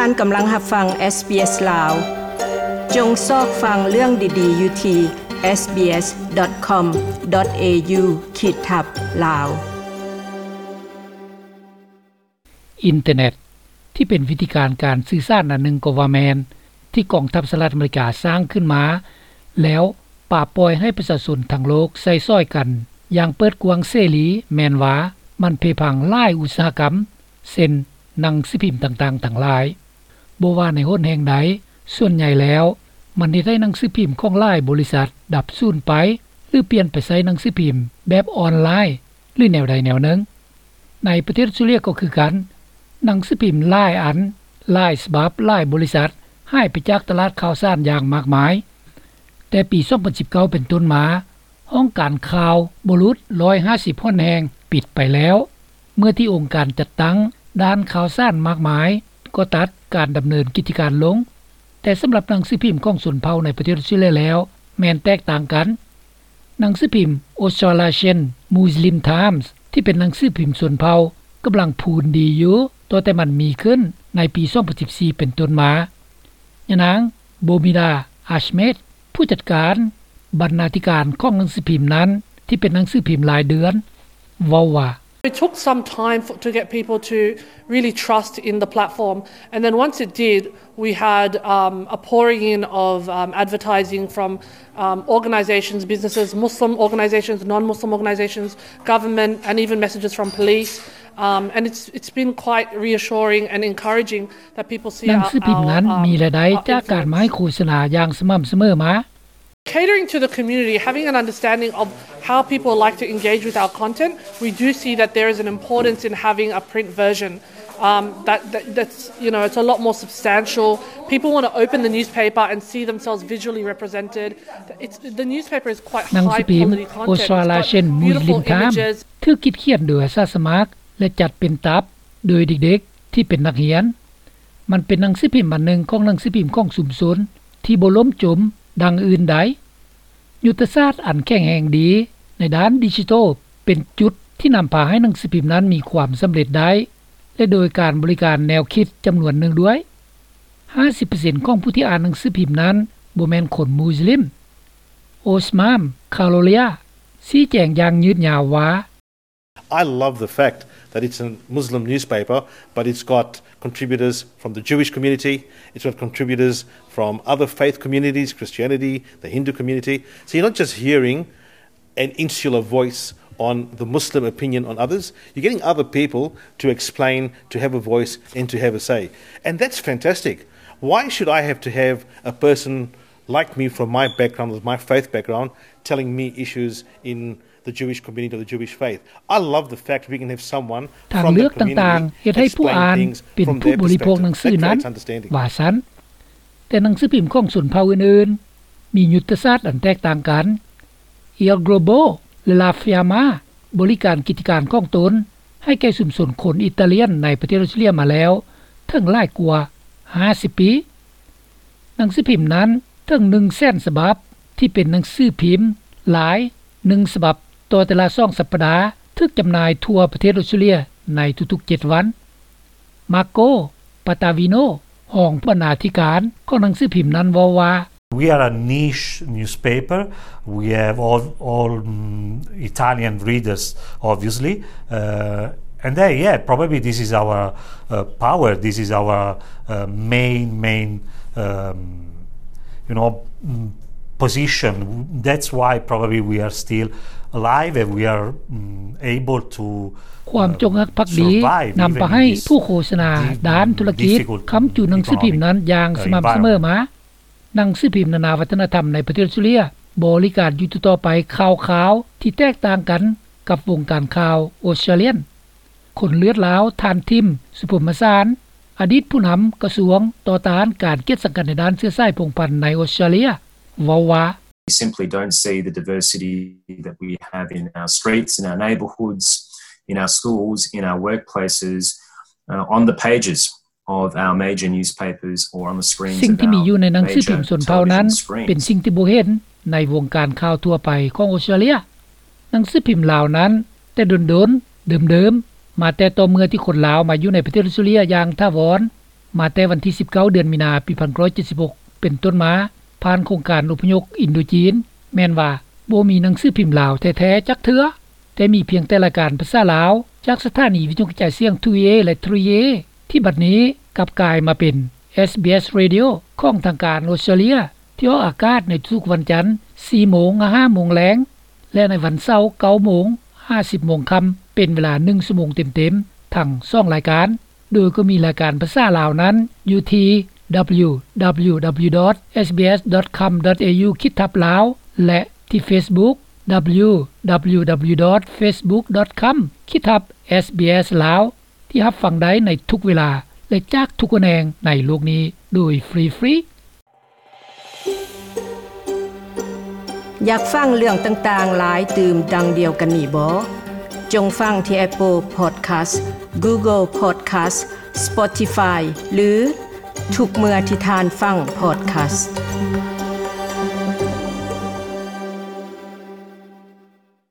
ທ່ານກຳລັງຮັບຟັງ ເອສບີເອສ ລາວ. ຈົ່ງຊອກຟັງເລື່ອງດີໆຢູ່ທີ່ ເອສບີເອສ ດອດ ຄອມ ດອດ ເອຢູ ຂີດທັບ ລາວ. ອິນເຕີເນັດ ທີ່ເປັນວິທີການການສື່ສານອັນໜຶ່ງກໍວ່າແມ່ນ ທີ່ກອງທັບສະຫະລັດອາເມລິກາສ້າງຂຶ້ນມາ ແລ້ວປະປ່ອຍໃຫ້ປະຊາຊົນທັງໂລກໃຊ້ສອຍກັນຢ່າງເປີດກວ້າງເສລີ, ແມ່ນວ່າມັນເພພັງຫຼາຍອຸດສາຫະກຳ ເຊັ່ນ ໜັງສືພິມຕ່າງໆທັງຫຼາຍ. ບໍ່ວ່າໃນຫົນແຫ່ງໃດ, ສ່ວນໃຫຍ່ແລ້ວມັນເຮັດໃຫ້ໜັງສືພິມຂອງຫຼາຍບໍລິສັດດັບສູນໄປ ຫຼື ປ່ຽນໄປໃຊ້ໜັງສືພິມແບບອອນລາຍ ຫຼື ແນວໃດແນວໜຶ່ງ. ໃນປະເທດອອສເຕຣເລຍກໍຄືກັນ, ໜັງສືພິມຫຼາຍອັນ, ຫຼາຍສະບັບ, ຫຼາຍບໍລິສັດຫາຍໄປຈາກຕະຫຼາດຂ່າວສານຢ່າງມາກມາຍ. ແຕ່ປີສອງພັນສິບເກົ້າເປັນຕົ້ນມາ, ຫ້ອງການຂ່າວບໍ່ຫຼຸດຮ້ອຍຫ້າສິບຫົນແຫ່ງປິດໄປແລ້ວ, ເມື່ອທີ່ອົງການຈັດຕັ້ງດ້ານຂ່າວສານມາກມາຍກໍຕັດການດຳເນີນກິດຈະການລົງ. ແຕ່ສຳລັບໜັງສືພິມຂອງຊົນເຜົ່າໃນປະເທດອອສເຕຣເລຍແລ້ວ ແມ່ນແຕກຕ່າງກັນ. ໜັງສືພິມ Australasian Muslim Times ທີ່ເປັນໜັງສືພິມຊົນເຜົ່າ ກຳລັງພູນດີຢູ່ ຕັ້ງແຕ່ມັນມີຂຶ້ນໃນປີສອງພັນສິບສີ່ເປັນຕົ້ນມາ. ຍານາງ Bomila Ahmed ຜູ້ຈັດການບັນນາທິການຂອງໜັງສືພິມນັ້ນ ທີ່ເປັນໜັງສືພິມລາຍເດືອນ ເວົ້າວ່າ It took some time for, to get people to really trust in the platform, and then once it did, we had, um, a pouring in of, um, advertising from, um, organisations, businesses, Muslim organisations, non-Muslim organisations, government, and even messages from police. Um, and it's, it's been quite reassuring and encouraging that people see ໜັງສືພິມນັ້ນມີລາຍໄດ້ຈາກການມາໃຫ້ໂຄສະນາຢ່າງສະໝ່ຳສະເໝີມາ. Catering to the community, having an understanding of how people like to engage with our content, we do see that there is an importance in having a print version. Um, that, that, that's, you know, it's a lot more substantial. People want to open the newspaper and see themselves visually represented. It's, the newspaper is quite high quality content. ໜັງສືພິມ Australasian Muslim Times ຖືກຄິດຂຽນໂດຍອາສາສະໝັກ ແລະ ຈັດເປັນຕັບໂດຍເດັກໆທີ່ເປັນນັກຮຽນ. ມັນເປັນໜັງສືພິມອັນໜຶ່ງຂອງໜັງສືພິມຂອງຊຸມຊົນທີ່ບໍ່ລົ້ມຈົມດັ່ງອື່ນໃດ. ຍຸດທະສາດອັນແຂງແຮງດີໃນດ້ານດິຈິໂຕເປັນຈຸດທີ່ນຳພາໃຫ້ໜັງສືພິມນັ້ນມີຄວາມສຳເລັດໄດ້ ແລະ ໂດຍການບໍລິການແນວຄິດຈຳນວນໜຶ່ງດ້ວຍ. ຫ້າສິບເປີເຊັນຂອງຜູ້ທີ່ອ່ານໜັງສືພິມນັ້ນບໍ່ແມ່ນຄົນມຸສລິມ. Osman Kharolia ຊີ້ແຈງຢ່າງຍືດຍາວວ່າ I love the fact that it's a Muslim newspaper, but it's got contributors from the Jewish community, it's got contributors from other faith communities, Christianity, the Hindu community. So you're not just hearing an insular voice on the Muslim opinion on others, you're getting other people to explain, to have a voice, and to have a say. And that's fantastic. Why should I have to have a person like me from my background, with my faith background, telling me issues in the Jewish community or the Jewish faith. I love the fact we can have someone from the community explain things from their perspective. That creates understanding. ວ່າຊັ້ນ. ແຕ່ໜັງສືພິມຂອງຊົນເຜົ່າອື່ນໆ ມີຍຸດທະສາດອັນແຕກຕ່າງກັນ. El Globo ແລະ La Fiamma ບໍລິການກິດຈະການຂອງຕົນໃຫ້ແກ່ຊຸມຊົນຄົນອີຕາລຽນໃນປະເທດອອສເຕຣເລຍມາແລ້ວເຖິງຫຼາຍກວ່າຫ້າສິບປີ. ໜັງສືພິມນັ້ນເຖິງໜຶ່ງແສນສະບັບ ທີ່ເປັນໜັງສືພິມລາຍໜຶ່ງສະບັບຕໍ່ແຕ່ລະສອງສັບປະດາ ຖືກຈຳໜ່າຍທົ່ວປະເທດອອສເຕຣເລຍໃນທຸກໆເຈັດວັນ. Marco Pattavino ຮອງບັນນາທິການຂອງໜັງສືພິມນັ້ນເວົ້າວ່າ We are a niche newspaper. We have all, all, mm, Italian readers, obviously. Uh, and they, yeah, probably this is our, uh, power. This is our, uh, main, main, um, you know, mm, position. That's why probably we are still alive and we are, mm, able to, uh, survive even in this difficult economic, uh, environment. ນຳພາໃຫ້ຜູ້ໂຄສະນາດ້ານທຸລະກິດຄ້ຳຈຸໜັງສືພິມນັ້ນຢ່າງສະໝ່ຳສະເໝີມາ. ໜັງສືພິມນານາວັດທະນະທຳໃນປະເທດອອສເຕຣເລຍບໍລິການຢູ່ຕໍ່ໆໄປຂ່າວຄາວທີ່ແຕກຕ່າງກັນກັບວົງການຂ່າວອອສເຕຣເລຍ. ຄົນເລືອດລາວ ທ່ານ ທິມ ສຸພົມມະສານ ອະດີດຜູ້ນຳກະຊວງຕໍ່ຕ້ານການກຽດສັງກັນໃນດ້ານເຊື້ອສາຍພົງພັນໃນອອສເຕຣເລຍ ເວົ້າວ່າ We simply don't see the diversity that we have in our streets, in our neighbourhoods, in our schools, in our workplaces, uh, on the pages of our major newspapers or on the screens of our major television screens. ສິ່ງທີ່ມີຢູ່ໃນໜັງສືພິມຊົນເຜົ່ານັ້ນເປັນສິ່ງທີ່ບໍ່ເຫັນໃນວົງການຂ່າວທົ່ວໄປຂອງອອສເຕຣເລຍ. ໜັງສືພິມລາວນັ້ນແຕ່ດົນໆ ເດີມໆ ມາແຕ່ຕໍ່ເມື່ອທີ່ຄົນລາວມາຢູ່ໃນປະເທດອອສເຕຣເລຍຢ່າງຖາວອນ ມາແຕ່ວັນທີສິບເກົ້າ ເດືອນມີນາ ປີພັນເກົ້າຮ້ອຍເຈັດສິບຫົກ ເປັນຕົ້ນມາ ຜ່ານໂຄງການອົບພະຍົບອິນໂດຈີນ ແມ່ນວ່າບໍ່ມີໜັງສືພິມລາວແທ້ໆຈັກເທື່ອ, ແຕ່ມີພຽງແຕ່ລາຍການພາສາລາວ ຈາກສະຖານີວິທະຍຸກະຈາຍສຽງ ທູເອ ແລະ ທຣີເອ ທີ່ບັດນີ້ກັບກາຍມາເປັນ ເອສບີເອສ Radio ຂອງທາງການອົດສະຕຣາເລຍ ທີ່ອອກອາກາດໃນທຸກວັນຈັນ ສີ່ໂມງຫາ ຫ້າໂມງແລງ ແລະ ໃນວັນເສົາ ເກົ້າໂມງຫາ ສິບໂມງຄ່ຳ ເປັນເວລາໜຶ່ງຊົ່ວໂມງເຕັມໆ ທັງສອງລາຍການ, ໂດຍກໍມີລາຍການພາສາລາວນັ້ນຢູ່ທີ່ www.sbs.com.au ຂີດທັບ lawlaw ແລະ ທີ່ Facebook www.facebook.com/sbslawlaw ທີ່ຮັບຟັງໄດ້ໃນທຸກເວລາ ແລະ ຈາກທຸກແຂວງໃນໂລກນີ້ໂດຍຟຣີໆ. ຢາກຟັງເລື່ອງຕ່າງໆຫຼາຍຕື່ມດັ່ງດຽວກັນນີ້ບໍ? ຈົ່ງຟັງທີ່ Apple Podcast, Google Podcast, Spotify ຫຼື ທຸກເມື່ອທີ່ທ່ານຟັງ Podcast.